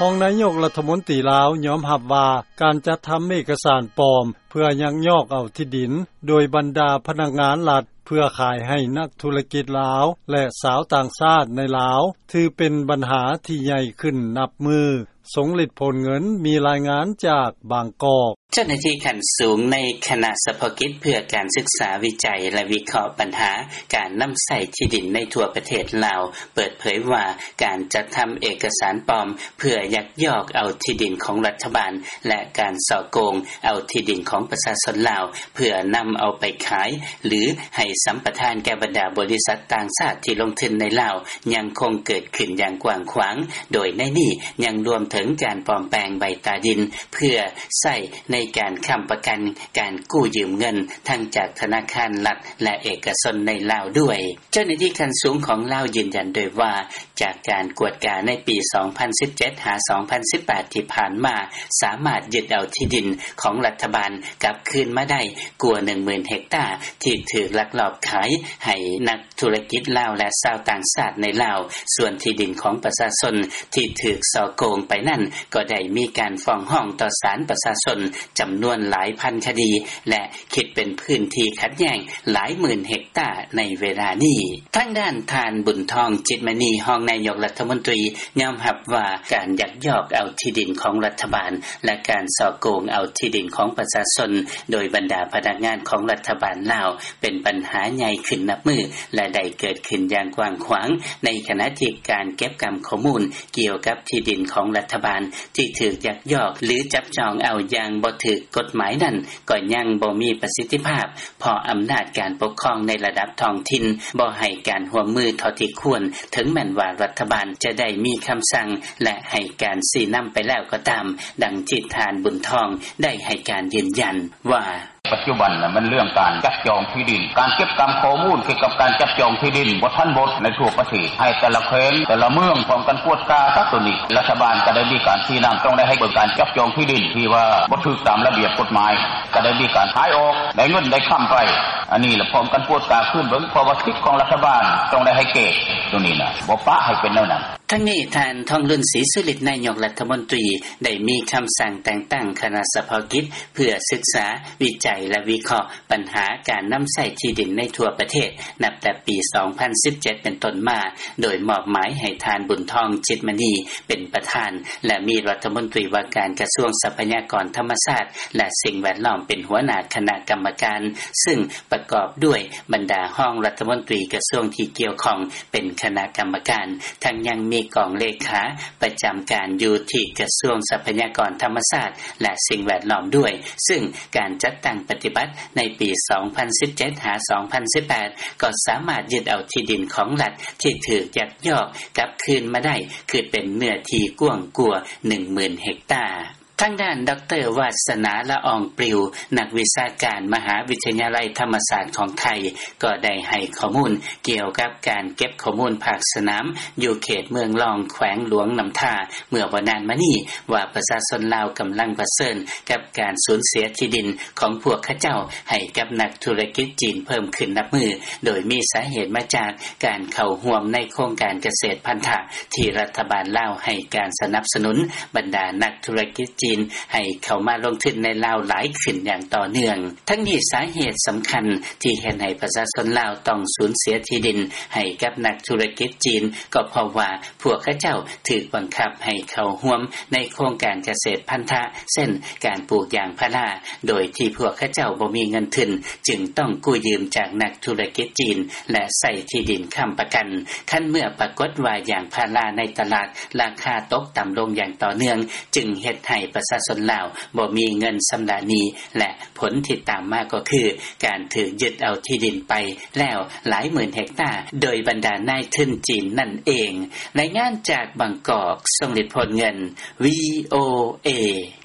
ຮອງນາຍົກລັດຖະມົນຕີລາວຍອມຮັບວ່າ ການຈັດທຳເອກກະສານປອມ ເພື່ອຍັກຍອກເອົາທີ່ດິນ ໂດຍບັນດາພະນັກງານລັດ ເພື່ອຂາຍໃຫ້ນັກທຸລະກິດລາວ ແລະ ຊາວຕ່າງຊາດໃນລາວ ຖືເປັນບັນຫາທີ່ໃຫຍ່ຂຶ້ນນັບມື້. ສົງລິດ ໂພນເງິນ ມີລາຍງານຈາກບາງກອກ. ເຈົ້າໜ້າທີ່ຂັ້ນສູງໃນຄະນະສະເພາະກິດເພື່ອການສຶກສາວິໄຈ ແລະ ວິເຄາະບັນຫາການນຳໃຊ້ທີ່ດິນໃນທົ່ວປະເທດລາວ ເປີດເຜີຍວ່າ ການຈັດທຳເອກະສານປອມ ເພື່ອຍັກຍອກເອົາທີ່ດິນຂອງລັດຖະບານ ແລະ ການສໍ້ໂກງເອົາທີ່ດິນຂອງປະຊາຊົນລາວ ເພື່ອນຳເອົາໄປຂາຍ ຫຼື ໃຫ້ສຳປະທານແກ່ບັນດາບໍລິສັດຕ່າງຊາດທີ່ລົງທຶນໃນລາວ ຍັງຄົງເກີດຂຶ້ນຢ່າງກວ້າງຂວາງ, ໂດຍໃນນີ້ຍັງລວມເຖິງການປອມແປງໃບຕາດິນ ເພື່ອໃຊ້ໃນການຄ້ຳປະກັນການກູ້ຢືມເງິນ ທັງຈາກທະນາຄານລັດ ແລະ ເອກະຊົນໃນລາວດ້ວຍ. ເຈົ້າໜ້າທີ່ຂັ້ນສູງຂອງລາວຢືນຢັນດ້ວຍວ່າ ຈາກການກວດກາໃນປີສອງພັນສິບເຈັດ ຫາ ສອງພັນສິບແປດ ທີ່ຜ່ານມາ ສາມາດຍຶດເອົາທີ່ດິນຂອງລັດຖະບານກັບຄືນມາໄດ້ກວ່າໜຶ່ງໝື່ນເຮັກຕາ ທີ່ຖືກລັກລອບຂາຍໃຫ້ນັກທຸລະກິດລາວ ແລະ ຊາວຕ່າງຊາດໃນລາວ. ສ່ວນທີ່ດິນຂອງປະຊາຊົນທີ່ຖືກສໍ້ໂກງໄປນັ້ນ ກໍໄດ້ມີການຟ້ອງຮ້ອງຕໍ່ສານປະຊາຊົນຈຳນວນຫຼາຍພັນຄະດີ ແລະ ຄິດເປັນພື້ນທີ່ຂັດແຍ້ງຫຼາຍໝື່ນເຮັກຕາໃນເວລານີ້. ທາງດ້ານທ່ານ ບຸນທອງ ຈິດມະນີ ຮອງນາຍົກລັດຖະມົນຕີ ຍອມຮັບວ່າການຍັກຍອກເອົາທີ່ດິນຂອງລັດຖະບານ ແລະ ການສໍ້ໂກງເອົາທີ່ດິນຂອງປະຊາຊົນ ໂດຍບັນດາພະນັກງານຂອງລັດຖະບານລາວ ເປັນບັນຫາໃຫຍ່ຂຶ້ນນັບມື້ ແລະ ໄດ້ເກີດຂຶ້ນຢ່າງກວ້າງຂວາງ, ໃນຂະນະທີ່ການເກັບກຳຂໍ້ມູນກ່ຽວກັບທີ່ດິນຂອງລັດຖະບານທີ່ຖືກຍັກຍອກ ຫຼື ຈັບຈອງເອົາຢ່າງບໍ່ຖືກກົດໝາຍນັ້ນ ກໍຍັງບໍ່ມີປະສິດທິພາບ ເພາະອຳນາດການປົກຄອງໃນລະດັບທ້ອງຖິ່ນບໍ່ໃຫ້ການຮ່ວມມືເທົ່າທີ່ຄວນ, ເຖິງແມ່ນວ່າລັດຖະບານຈະໄດ້ມີຄຳສັ່ງ ແລະ ໃຫ້ການຊີ້ນຳໄປແລ້ວກໍຕາມ, ດັ່ງທີ່ທ່ານ ບຸນທອງ ໄດ້ໃຫ້ການຢືນຢັນວ່າ: ປັດຈຸບັນນະ ມັນເລື່ອງການຈັບຈອງທີ່ດິນ, ການເກັບກຳຂໍ້ມູນກ່ຽວກັບການຈັບຈອງທີ່ດິນບໍ່ທັນໝົດໃນທົ່ວປະເທດ, ໃຫ້ແຕ່ລະແຂວງ ແຕ່ລະເມືອງພ້ອມກັນກວດກາຊະໂຕນີ້. ລັດຖະບານກໍໄດ້ມີການຊີ້ນຳ, ຕ້ອງໄດ້ໃຫ້ເບິ່ງການຈັບຈອງທີ່ດິນທີ່ວ່າບໍ່ຖືກຕາມລະບຽບກົດໝາຍ, ກໍໄດ້ມີການຂາຍອອກ, ໄດ້ເງິນໄດ້ຄຳໄປ. ອັນນີ້ລະພ້ອມກັນກວດກາຄືນເບິ່ງ, ເພາະວ່າສິດຂອງລັດຖະບານຕ້ອງໄດ້ໃຫ້ແກ່ໂຕນີ້ນະ, ບໍ່ປະໃຫ້ເປັນແນວນັ້ນ. ທັງນີ້ ທ່ານ ທອງລຸນ ສີສຸລິດ ນາຍົກລັດຖະມົນຕີ ໄດ້ມີຄຳສັ່ງແຕ່ງຕັ້ງຄະນະສະເພາະກິດ ເພື່ອສຶກສາ, ວິໄຈ ແລະ ວິເຄາະ ບັນຫາການນຳໃຊ້ທີ່ດິນໃນທົ່ວປະເທດ ນັບແຕ່ປີສອງພັນສິບເຈັດເປັນຕົ້ນມາ, ໂດຍມອບໝາຍໃຫ້ທ່ານ ບຸນທອງ ຈິດມະນີ ເປັນປະທານ ແລະ ມີລັດຖະມົນຕີວ່າການກະຊວງຊັບພະຍາກອນທຳມະຊາດ ແລະ ສິ່ງແວດລ້ອມ ເປັນຫົວໜ້າຄະນະກຳມະການ, ຊຶ່ງປະກອບດ້ວຍບັນດາຮອງລັດຖະມົນຕີກະຊວງທີ່ກ່ຽວຂ້ອງເປັນຄະນະກຳມະການ, ທັງຍັງມີກອງເລຂາປະຈຳການຢູ່ທີ່ກະຊວງຊັບພະຍາກອນທຳມະຊາດ ແລະ ສິ່ງແວດລ້ອມດ້ວຍ, ຊຶ່ງການຈັດຕັ້ງປະຕິບັດໃນປີສອງພັນສິບເຈັດ ຫາ ສອງພັນສິບແປດ ກໍສາມາດຍຶດເອົາທີ່ດິນຂອງລັດທີ່ຖືກຍັກຍອກກັບຄືນມາໄດ້ ຄືເປັນເນື້ອທີ່ກວ້າງກວ່າໜຶ່ງໝື່ນເຮັກຕາ. ທາງດ້ານ ດອກເຕີ ວາສະໜາ ລະອອງປລິວ ນັກວິຊາການມະຫາວິທະຍາໄລທຳມະສາດຂອງໄທ ກໍໄດ້ໃຫ້ຂໍ້ມູນກ່ຽວກັບການເກັບຂໍ້ມູນພາກສະໜາມ ຢູ່ເຂດເມືອງລອງ ແຂວງຫຼວງນ້ຳທາ ເມື່ອບໍ່ນານມານີ້ວ່າ ປະຊາຊົນລາວກຳລັງປະເຊີນກັບການສູນເສຍທີ່ດິນຂອງພວກເຂົາເຈົ້າໃຫ້ກັບນັກທຸລະກິດຈີນເພີ່ມຂຶ້ນນັບມື້, ໂດຍມີສາເຫດມາຈາກການເຂົ້າຮ່ວມໃນໂຄງການກະເສດພັນທະ ທີ່ລັດຖະບານລາວໃຫ້ການສະໜັບສະໜູນບັນດານັກທຸລະກິດຈີນໃຫ້ເຂົ້າມາລົງທຶນໃນລາວຫຼາຍຂຶ້ນຢ່າງຕໍ່ເນື່ອງ. ທັງນີ້ສາເຫດສຳຄັນທີ່ເຮັດໃຫ້ປະຊາຊົນລາວຕ້ອງສູນເສຍທີ່ດິນໃຫ້ກັບນັກທຸລະກິດຈີນ ກໍເພາະວ່າພວກເຂົາເຈົ້າຖືກບັງຄັບໃຫ້ເຂົ້າຮ່ວມໃນໂຄງການກະເສດພັນທະ ເຊັ່ນ ການປູກຢາງພາລາ ໂດຍທີ່ພວກເຂົາເຈົ້າບໍ່ມີເງິນທຶນ ຈຶ່ງຕ້ອງກູ້ຢືມຈາກນັກທຸລະກິດຈີນ ແລະ ໃຊ້ທີ່ດິນຄ້ຳປະກັນ. ຄັນເມື່ອປາກົດວ່າຢາງພາລາໃນຕະຫຼາດລາຄາຕົກຕ່ຳລົງຢ່າງຕໍ່ເນື່ອງ ຈຶ່ງເຮັດໃຫ້ປະຊາຊົນລາວບໍ່ມີເງິນຊຳລະໜີ້ ແລະ ຜົນທີ່ຕາມມາກໍຄືການຖືກຍຶດເອົາທີ່ດິນໄປແລ້ວຫຼາຍໝື່ນເຮັກຕາ ໂດຍບັນດານາຍທຶນຈີນນັ້ນເອງ. ລາຍງານຈາກບາງກອກ, ຊົງລິດ ໂພນເງິນ, ວີໂອເອ.